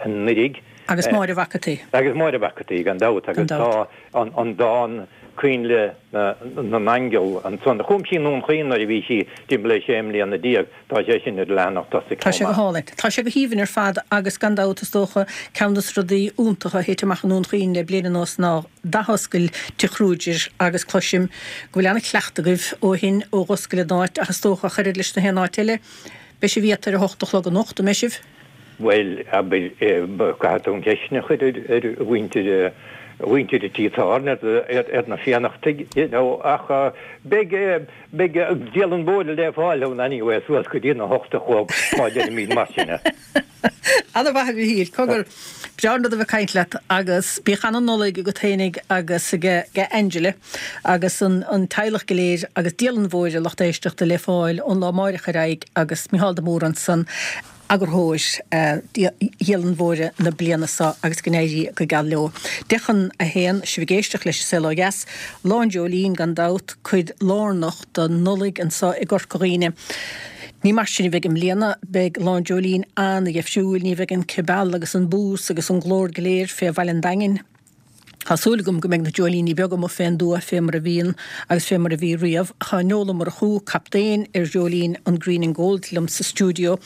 anuraidh. Agus Máire Mhac an tSaoi. Agus Máire Mhac an tSaoi, gan dabht, agus tá an dán Coinnle na nAingeal ansan, a chum sí i nDún Chaoin nuair a bhí sí timpeall ar 16 mbliana, tá sé sin ar an leathanach tosaigh Tá sé chomh go maith. hálainn. Tá sé go haoibhinn ar fad agus gan dabht is dócha ceann dos rudaí iontacha a thit amach i nDún Chaoin le bliain anuas ná d'athoscail Tigh Kruger agus cloisim go bhfuil ana-chleachtadh agaibh ó shin ó dh'oscail an áit ach is dócha ach oiread leis na haon áit eile beidh sibh iata ar a hocht a chlog anocht, an mbeidh sibh? Bhuel, abair, caithfidh tú an cheist sin a chur ar mhuintir, mhuintir an tí tábhairne, ar na Fiannachtaigh, you know, ach beidh, beidh Dialann Mhóire le fáil ann anyway suas go dtí na hocht a chlog, má deirimid mar sin é. Ana-mhaith a Mhichíl, cogar, breá an rud a bheith ag caint leat agus bíodh ana-Nollaig agat fhéinig agus ag Angela agus an teaghlach go léir agus Dialann Mhóire, lucht éisteachta, le fáil ón lá amáireach ar aghaidh agus Micheál de Mórdha ansan. Eagarthóir Dhialann Mhóire na bliana seo agus go n-éirí go geal leo. 10 chun a haon, sibh ag éisteacht leis An Saol Ó Dheas. Lá an Dreoilín gan dabht, cuid lárnach den Nollaig anseo i gCorca Dhuibhne. Ní mar sin a bheidh i mbliana, beidh Lá an Dreoilín an-dheifriúil, ní bheidh an cibeal agus an bús agus an glór go léir fé bhaile an Daingin. Tá súil agam go mbeidh na dreoilíní beaga amuigh fén dtuath fé mar a bhíonn agus fé mar a bhí riamh. Tá Noel Ó Murchú, captaen ar dhreoilín an Green and Gold liom sa stiúideo.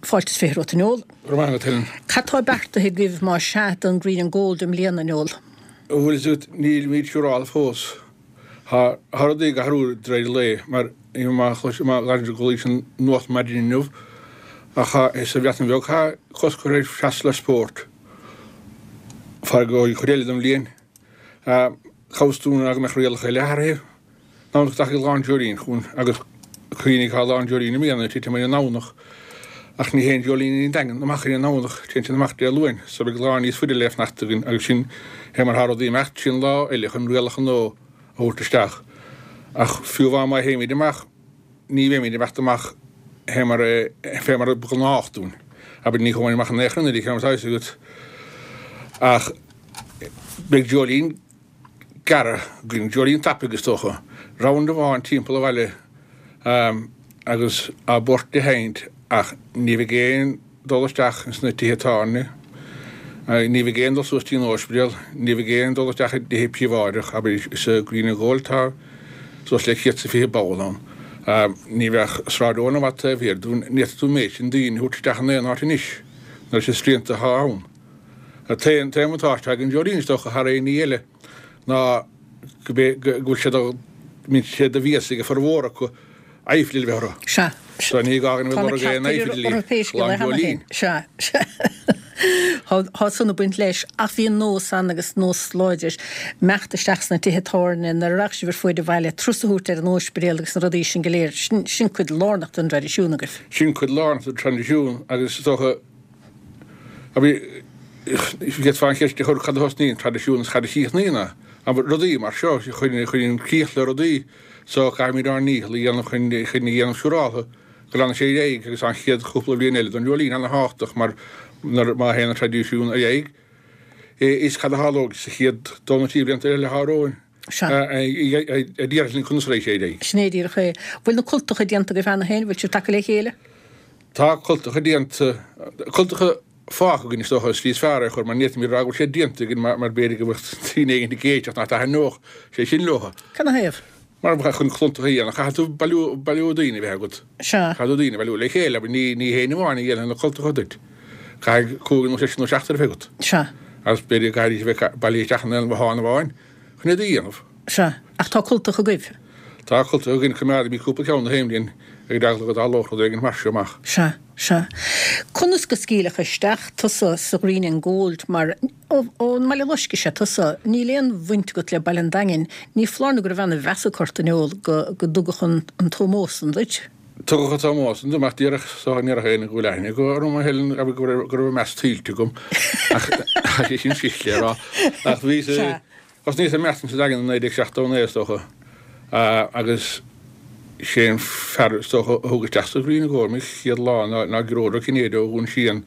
Fáilte is 20 romhat, a Noel. Go raibh maith agat, Helen. Cad tá beartaithe agaibh más sea don Green and Gold i mbliana, Noel? Bhfuil fhios agat, nílimid siúráilte fós. Tá rudaí ag athrú de réir lae, mar má chualaís an nuacht maidin inniu, ach sa Bhreatain Bheag tá cosc curtha ar freastal ar spórt. Feadh an chuid eile den bhliain, cá bhfios dúinn ná go mbeadh rialacha eile athraithe. An Domhnach go dtagann Lá an Dreoilín chugainn agus cuimhnigh tá Lá an Dreoilín i mbliana ag titim ar an nDomhnach ach ní théann dreoilíní an Daingin amach ar an nDomhnach, téann siad amach Dé Luain so beidh lá níos faide le fanacht againn agus sin é mar tá rudaí ag imeacht, sin lá eile chun rialacha nua a thabhairt isteach. Ach fiú amháin má théimid amach, ní bheimid ag imeacht amach fé mar fé mar ba ghnách dúinn. Abair, ní chuaigh amach in aon chor anuraidh, mar atá fhios agat. Ach beidh dreoilín gearr againn, dreoilín tapaidh is dócha, round amháin timpeall an bhaile agus á bport a sheinnt ach ní bheidh aon dul isteach ins na tithe tábhairne. Ní bheidh aon dul suas dtí an Ospidéal, ní bheidh aon dul isteach i dtithe príobháideach, abair sa Green and Gold tá suas le 120 ball ann. Ní bheadh Sráid Eoin i bhfad taobh thiar dúinn, ní fhéadfadh tú an méid sin daoine a thabhairt isteach in aon áit anois, nuair is srianta atá ann. An t-aon bhuntáiste atá ag an Dreoilín is dócha thar aon ní eile ná go bhfuil sé do, mbíonn sé de mhias ag a formhór acu aiféala a bheith orthu. Sea. So ní gá dhúinn a Tá bheith na ag lorg aon cearta aiféala orthu pé scéal lá é an cheana féin. Dreoilín. Sea. Sea. Tá san ag baint leis. Ach bhí an nós ann agus nós láidir imeacht isteach sna tithe tábhairne nuair a rachadh sibh ar fuaid an bhaile, turas a thabhairt ar an óispidéal agus na rudaí sin go léir. Sin, sin cuid lárnach den dtraidisiún agaibh. Sin cuid lárnach den traidisiún agus is dócha, abair, d'fhéadfá an cheist a chur cad a thosnaíonn traidisiún is cad a chríochnaíonn é. Abair, rudaí mar seo, cuireann críoch le rudaí. So caithfimid ár ndícheall a dhéanamh chun a dhéanamh siúráltha go leanfaidh sé ar aghaidh agus an chéad chúpla bliain eile don Dreoilín ana-thábhachtach mar nuair má théann an traidisiún ar aghaidh is cad a tharlóidh sa chéad dó nó trí blianta eile atá romhainn a déarfas linn conas a raghaidh sé ar aghaidh. Sin é díreach é. Bhfuil na cultacha déanta agaibh cheana féin? Bhfuil sibh tagtha le chéile? Tá cultacha déanta, cultacha fágtha againn is dócha an slí is fearr é a chur mar ní fhéadfaimid a rá go bhfuil sé déanta againn mar b'fhéidir go mbeadh daoine éigin ag éisteacht nach dtaitneodh sé sin leo. Cad 'na thaobh? Mar chun cultacha a dhéanamh caithfidh tú bailiú bailiú daoine a bheith agat. Sea. Caithfidh tú daoine a bhailiú le chéile abair ní ní héinne amháin a dhéanfaidh na cultacha duit. Caithfidh cúigear nó seisear nó seachtar a bheith agat. Sea. Agus b'fhéidir go gcaithfidís a bheith bailithe isteach in aon bhothán amháin chun iad a dhéanamh. Sea. Ach tá cultacha agaibh? Tá cultacha againn, coimeádaimid cúpla ceann na haon bhliain ar eagla go dtarlódh rud éigin mar seo amach. Sea, sea. Conas go scaoileadh isteach tusa sa Ghreen and Gold mar ón mBaile Loiscthe is ea tusa, níl aon bhaint agat le Baile an Daingin, ní foláir nó go raibh ana-mheas ag ort an eol go go dtugadh an an t-ómós san duit? Tugadh an t-ómós san dom ach díreach so ní raibh éinne go bhfuil aithne acu orm a Helen go raibh go raibh meas tuillte agam ach tá sé sin cliste a rá ach bhí Sea. Thosnaíos ag imeacht sa Daingean i 1979 is dócha agus sé an fear is dócha a thug isteach sa Ghreen and Gold mé chéad lá ná Gearóid Ó Cinnéide ó Dhún Síon.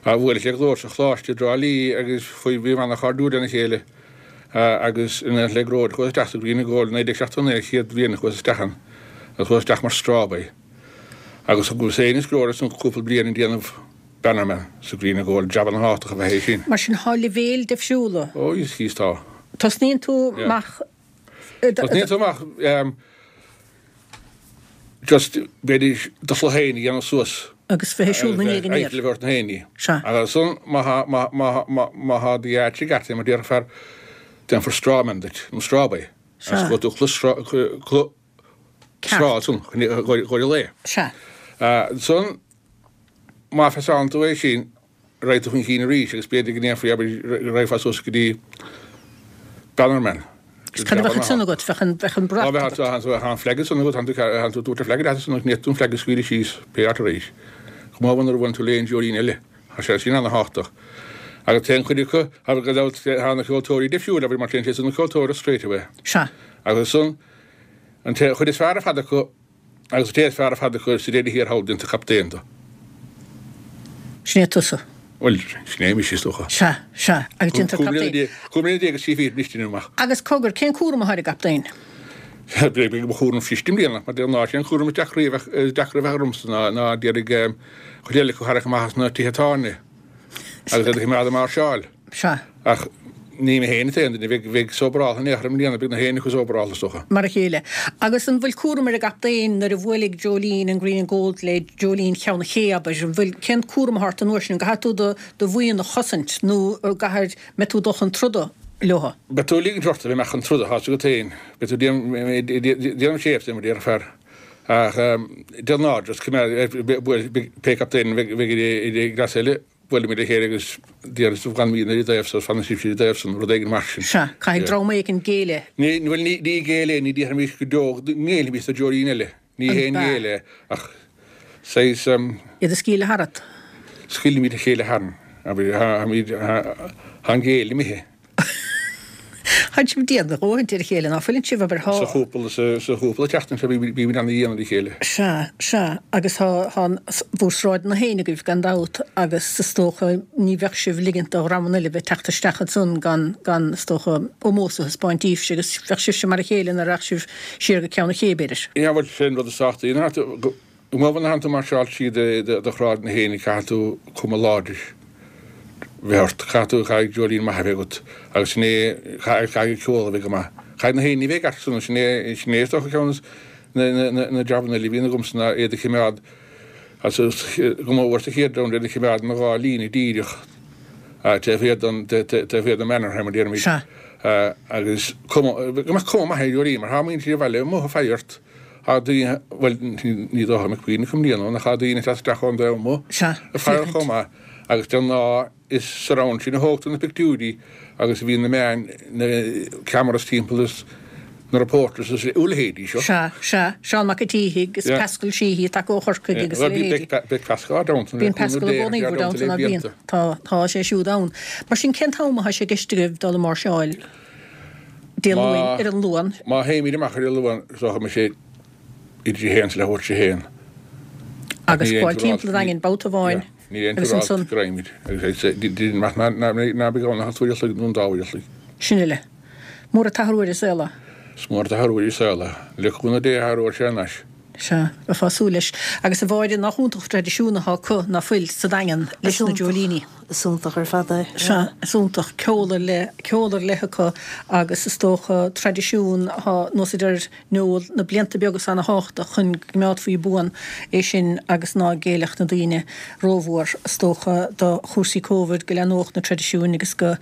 Bhuaileas le Gearóid sa Choláiste i dTrá Lí agus chuaigh bhíomar ana-chairdiúil lena chéile agus in éineacht le Gearóid chuas isteach sa Green and Gold i 1979 an chéad bhliain a chuas isteach ann agus chuas isteach mar strawboy agus thugas féin is Gearóid ansan cúpla bliain ag déanamh Bannerman sa Green and Gold, jab ana-thábhachtach ab ea é sin. Mar sin, thá leibhéil difriúla. Ó, is thíos tá. Tosnaíonn tú amach. Tosnaíonn tú amach just b'fhéidir do chluiche féin a dhéanamh suas. Agus bheith ag siúl na ndiaidh aniar. Eitil a bheith ort na héinní. Sea. Agus ansan má thá, má, má, má, má thá d'áit i gceart, mar déarfar, déanfar strawman duit, nó strawboy. Sea. Agus gabhfaidh tú cluiche, cluiche straw ansan, chun, chun an lae. Sea. Ansan Má phasálann tú é sin, raghaidh tú chun cinn arís agus b'fhéidir go ndéanfaí, abair, go raghfá suas go dtí Bannerman. Is cad a bheadh ansan agat? Bheadh an, bheadh an brat agat. Bheadh an flag ansan agat, thánn tú, tabhairt an flag leat ansan agus ní fhéadfaí tú an flag a scaoileadh síos pé áit a raghaís. Chomh maith nuair a bhuaileann tú le aon dreoilín eile, tá sé sin ana-thábhachtach. Agus téann cuid acu, abair, gan dabht, tá na ceoltóirí difriúil, abair, mar téann siad san ceoltóireacht straight away. Sea. Agus ansan, an té, chuid is fearr ar fad acu, Agus an té is fearr ar fad acu sa deireadh thiar thall déantar captaen de. Sin é tusa. Bhuel, sin é mise, is dócha. Sea, sea, agus déantar captaen. 15 mbliana agus 3 fichid anois déanaim amach. Agus cogar, cén cúram atá ar an gcaptaen? Beidh mo chúram cliste i mbliana, mar de ghnáth, sé an cúram is deacra a bheith, is deacra a bheith ormsa ná, ná d'iarraidh chuid eile acu a tharrac amach as na tithe tábhairne agus iad a choimeád ag máirseáil. Sea. Ach ní mé féin an t-aon duine a bheidh sóbaráltha in aon chor i mbliana, beidh na héinne acu sóbaráltha, is dócha. Mar a chéile. Agus an bhfuil cúram ar an gcaptaen nuair a bhuailfidh dreoilín an Green and Gold le dreoilín Cheann an Ché, abair? An bhfuil, cén cúram atá ort an uair sin? An gcaithfidh tú do, do bhuíon a chosaint nó an gcaithfidh, mbeidh tú ag dul chun troda leo? Beidh tú ag ligint ort a bheith amach chun troda, tá's agat féin. Beidh tú ag déanamh séimh de, mar a déarfar. Ach de ghnáth, just coimeád, pé captaen a bheidh i gcleas eile, Buailimid le chéile agus déarfaidh fanfaimidne ar an dtaobh so, fanfaidh sibhse ar an dtaobh san, rud éigin mar sin. Sea, caithfidh dream éigin géilleadh. Ní, bhuel, ní, ní géilleadh é, ní déarfaimis go deo go ngéillfimis do dreoilín eile. Ní haon ghéilleadh é, ach saghas. Iad a scaoileadh tharat. Scaoilimid a chéile tharainn, abair, tháimid, tá an géilleadh imithe. Tánn sibh dian a dhóthaint ar a chéile, ná fuileann sibh, abair, thá. Sa chúpla, sa chúpla tseachtain seo bímid ana-dhian ar a chéile. Sea, sea, agus thá, thá bhur sráideanna féin agaibh gan dabht agus is dócha ní bheadh sibh ligint do dhreamanna eile bheith teacht isteach ansan gan, gan, is dócha, ómós a thaispeáint daoibhse agus bheadh sibhse mar a chéile nuair a rachadh sibh siar go Ceann an Ché, b'fhéidir. Yeah, bhuel, sé an rud is tábhachtaí ná go Má bhaineann tú máirseáil tríd do shráideanna féin caithfidh tú cuma láidir. bheith ort. Caithfidh tú, caithfidh dreoilín maith a bheith agat agus sin é, agus caithfidh ceol a bheith go maith. Caithfidh na héinne a bheith i gceart san, sin é, sin é is dócha ceann de na, na, na jabanna eile a bhíonn agamsa ná iad a chimeád, agus go mór sa chéad round, iad a chimeád ina dhá líne díreach taobh thiar den, taobh thiar den Mannerheim a déarfaimid. Sea. Agus cuma, go mbeadh cuma maith ar dheoilín mar tá muintir an bhaile amuigh ag faire ort. Tá daoine, bhuel, ní dócha go mbeadh puinn acu i mbliana ann ach tá daoine ag teacht isteach ón dtaobh amuigh Sea, ag faire féachaint. chomh maith agus de ghnáth is sa round sin a thógtar na pictiúirí agus a bhíonn na meáin, na cameras timpeall is na reporters is a leithéidí seo. Sea, sea. Seán Mac an tSíthigh agus Yeah. Pascal Sheehy ag tacú ó Chorcaigh agus a Bhuel, bhí leithéidí. beidh, beidh Pascal down Bíonn Pascal i gcónaí bhur dteannta, ná bíonn? Tá, tá sé siúd ann. Mar sin, cén t-am atá sé i gceist agaibh dul ag máirseáil Dé Luain, ar an Luan? Má théimid amach ar an Luan, is dócha go mbeidh sé idir a haon is leathuair tar éis a haon. Agus gabháil timpeall an Daingin babhta amháin Níl aon agus turáil ansan. go raghaimid. Agus déarfainn ná beidh ann ach an uair a chloig nó an dá uair a chloig. Sin uile. Mór an t-athrú ar an saol é. Is mór an t-athrú ar an saol é. Le cúnamh Dé athróidh sé anois. Sea, bheifeá ag súil leis. Agus a Mháire, nach iontach an traidisiún atá acu, ná fuil, sa Daingean, leis na dreoilíní. Is iontach ar fad é. Sea, is iontach. Ceol ar leith, ceol ar leith acu agus is dócha traidisiún atá, nós a deir Noel, na blianta beaga is ana-thábhachtach chun go gcoimeádfaí buan é sin agus ná géillfeadh na daoine rómhór, is dócha, do chúrsaí Covid, go leathnódh na traidisiúin agus go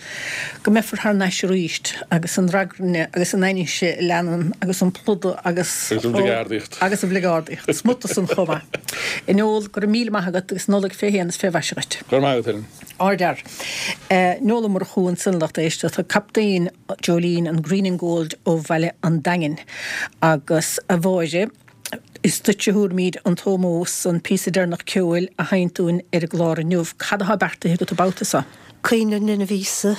go mbeifear thar n-ais arís agus an ragairne agus an ainnise a leanann agus an plúdadh agus. Agus an bhligeardaíocht. Agus an bhligeardaíocht. Smut de san chomh maith. A Noel, go raibh míle maith agat agus Nollaig fé shéan is fé mhaise dhuit. Go raibh maith agat, Helen. Ardfhear. Noel Ó Murchú ansan, lucht éisteachta, captaen Dreoilín an Green and Gold ó bhaile an Daingin. Agus a Mháire, is duitse a thabharfaimid an t-ómós, an píosa deireanach ceoil a sheinnt dúinn ar an gclár inniu. Cad atá beartaithe agat an babhta seo? Caoineadh an Linbh Íosa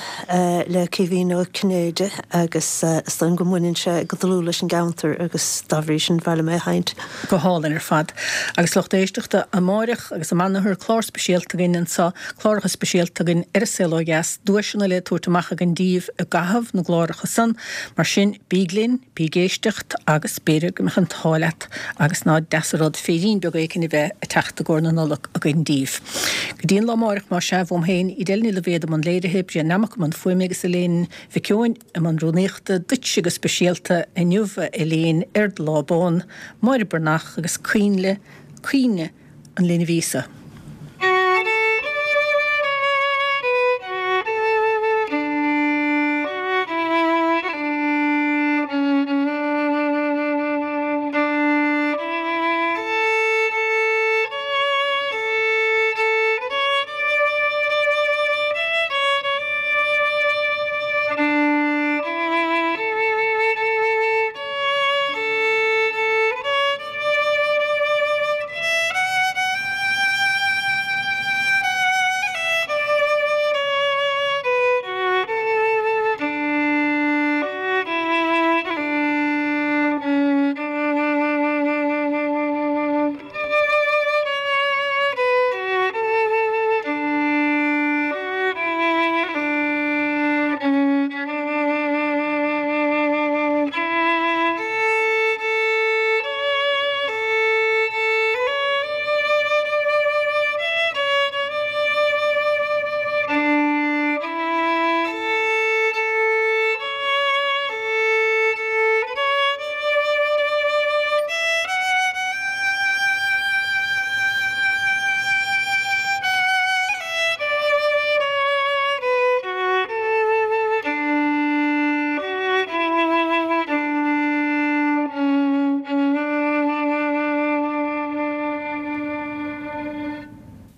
le Caoimhín Ó Cinnéide agus is dóigh liom go mbaineann sé go dlúth leis an gceantar agus dá bhrí sin ba mhaith liom é a sheinnt. Go hálainn ar fad. Agus lucht éisteachta, amáireach agus amanathar, clár speisialta againn anseo, cláracha speisialta againn ar An Saol Ó Dheas, duaiseanna le tabhairt amach againn díbh i gcaitheamh na gcláracha san, mar sin bíg linn, Bí ag éisteacht agus b'fhéidir go mbeadh an t-ádh leat agus ná deas an rud féirín beag éicint a bheith ag teacht i gcomhair na Nollag againn díbh. Go dtí an lá amáireach más ea, uaim féin, Edel Ní Loibhéad i mbun léirithe, Brian Nammock i mbun fuaime agus Elaine Mhic Eoin i mbun rúnaíochta, duitse go speisialta inniu a Elaine ar do lá bán, Máire Breathnach agus coinnle, caoineadh an Linbh Íosa.